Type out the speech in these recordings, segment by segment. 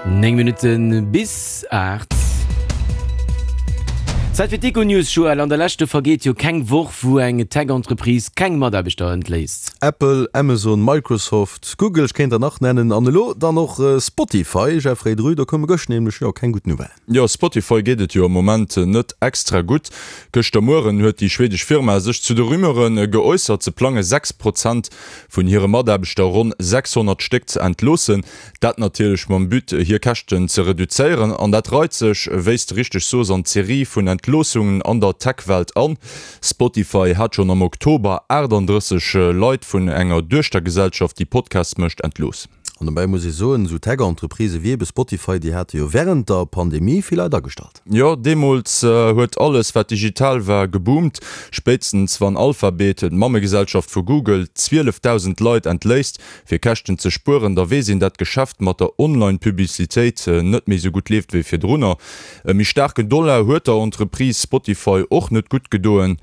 9 Minutte bis 8. Zäit fir d'Econews, Joël. An der Lescht, do vergeet jo keng Woch, wou eng Tech-Entreprise keng Mataarbechter entléisst. Apple, Amazon, Microsoft, Google, ech kéint der nach nennen, an elo dann och Spotify. Jeffrey Drü, do koume gëscht nämlech, jo, keng gutt Nouvellen. Jo, Spotify geet et jo am Moment net extra gutt. Gëschter Mueren huet déi schwedesch Firma sech zu de Rumeure geäussert, se plange 6 Prozent vun hire Mataarbechter, ronn 600 Stéck, ze entloossen. Dat natierlech mam But, hir Käschten ze reduzéieren. An dat reit sech, wéi s de richteg soos, an d'Serie vun Entloossungen an der Tech-Welt an. Spotify hat schonn am Oktober 38 Leit vun enger Duechtergesellschaft, déi Podcasts mécht, entlooss. An dobäi muss ee soen, esou Tech-Entreprisë wéi ebe Spotify, déi hate jo wärend der Pandemie vill Leit agestallt. Jo, deemools huet alles, wat digital war, geboomt. Spéitstens wann Alphabet, d'Mammegesellschaft vu Google, 12.000 Leit entléisst, Fir Käschten ze spueren, da weess een dat d'Geschäft mat der Online-Publicitéit net méi sou gutt leeft wéi virdrunner. E méi staarken Dollar huet der Entreprise Spotify och net gutt gedoen.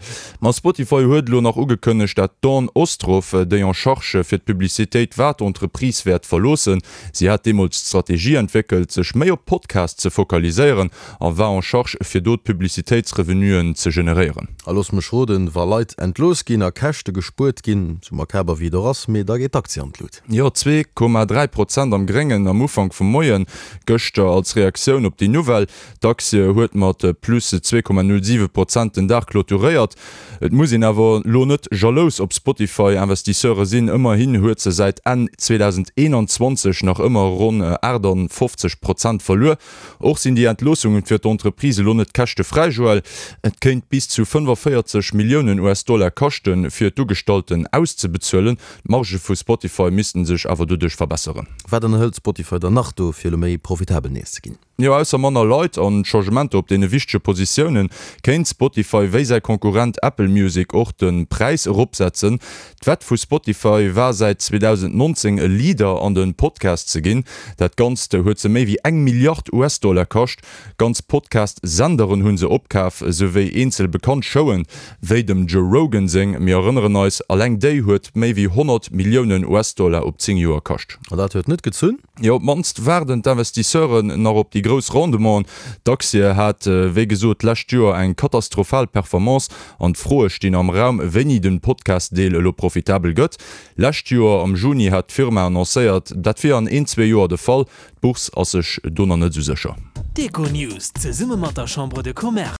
Ma Spotify huet elo nach ugekënnegt dat d'Dawn Ostroff, déi en charge fir d'Publicitéit war, d'Entreprise wäert verloossen. Si hat deemools d'Strategie entwéckelt, sech méi op Podcasts ze fokaliséieren a war en charge fir do d'Publicitéitsrevenuen ze generéieren. A looss mech roden, wa Leit entlooss ginn a Käschte gespuert ginn, sou makaber wéi et och ass, mee da geet d'Aktie an d'Lut. Jo, 2,3 Prozent am Gréngen am Ufank vum Moien gëschter als Reaktioun op déi Nouvelle. D'Aktie huet mat plus 2,07 Prozent den Dag clôturéiert. Et muss een awer elo net jalous op Spotify-Investisseure sinn, ëmmerhin huet se säit Enn 2021 nach ëmmer ronn 58 Prozent verluer. Och sinn déi Entloossungen fir d'Entreprise elo net käschtefräi, Joël. Et kéint bis zu 45 Milliounen US-Dollar kaschten, fir d'Ugestallten auszebezuelen. D'Margë vu Spotify missten sech awer doduerch verbesseren. Wat ënnerhëlt Spotify dann nach do, fir elo méi profitabel nees ze ginn? Jo, ausser manner Leit an Changementer op deene wichtege Positiounen, kéint Spotify wéi säi Konkurrent Apple Music och de Präis eropsetzen. D'Wett vu Spotify war säit 2019 e Leader an de Podcast ze ginn. Dat Ganzt huet se méi wéi eng Milliard US-Dollar kascht. Ganz Podcast-Senderen hu se opkaf, souwéi eenzel bekannt Showen, wéi dem Joe Rogan seng. Mir erënneren eis, alleng déi huet méi wéi 100 Milliounen US-Dollar op 10 Joer kascht. An dat huet net gezunn? Jo, op d'mannst waarden d'Investisseuren nach op déi grouss Rendementen. D'Aktie hat wéi gesot d'lescht Joer eng katastrophal Performance an d'Froe stinn am Raum, wéini den Podcast-Deel elo profitabel gëtt. Lescht Joer am Juni hat d'Firma annoncéiert, dat wier an een, zwee Joer de Fall. D'Bourse ass sech do nach net esou sécher. D'Econews zesumme mat der Chambre de Commerce.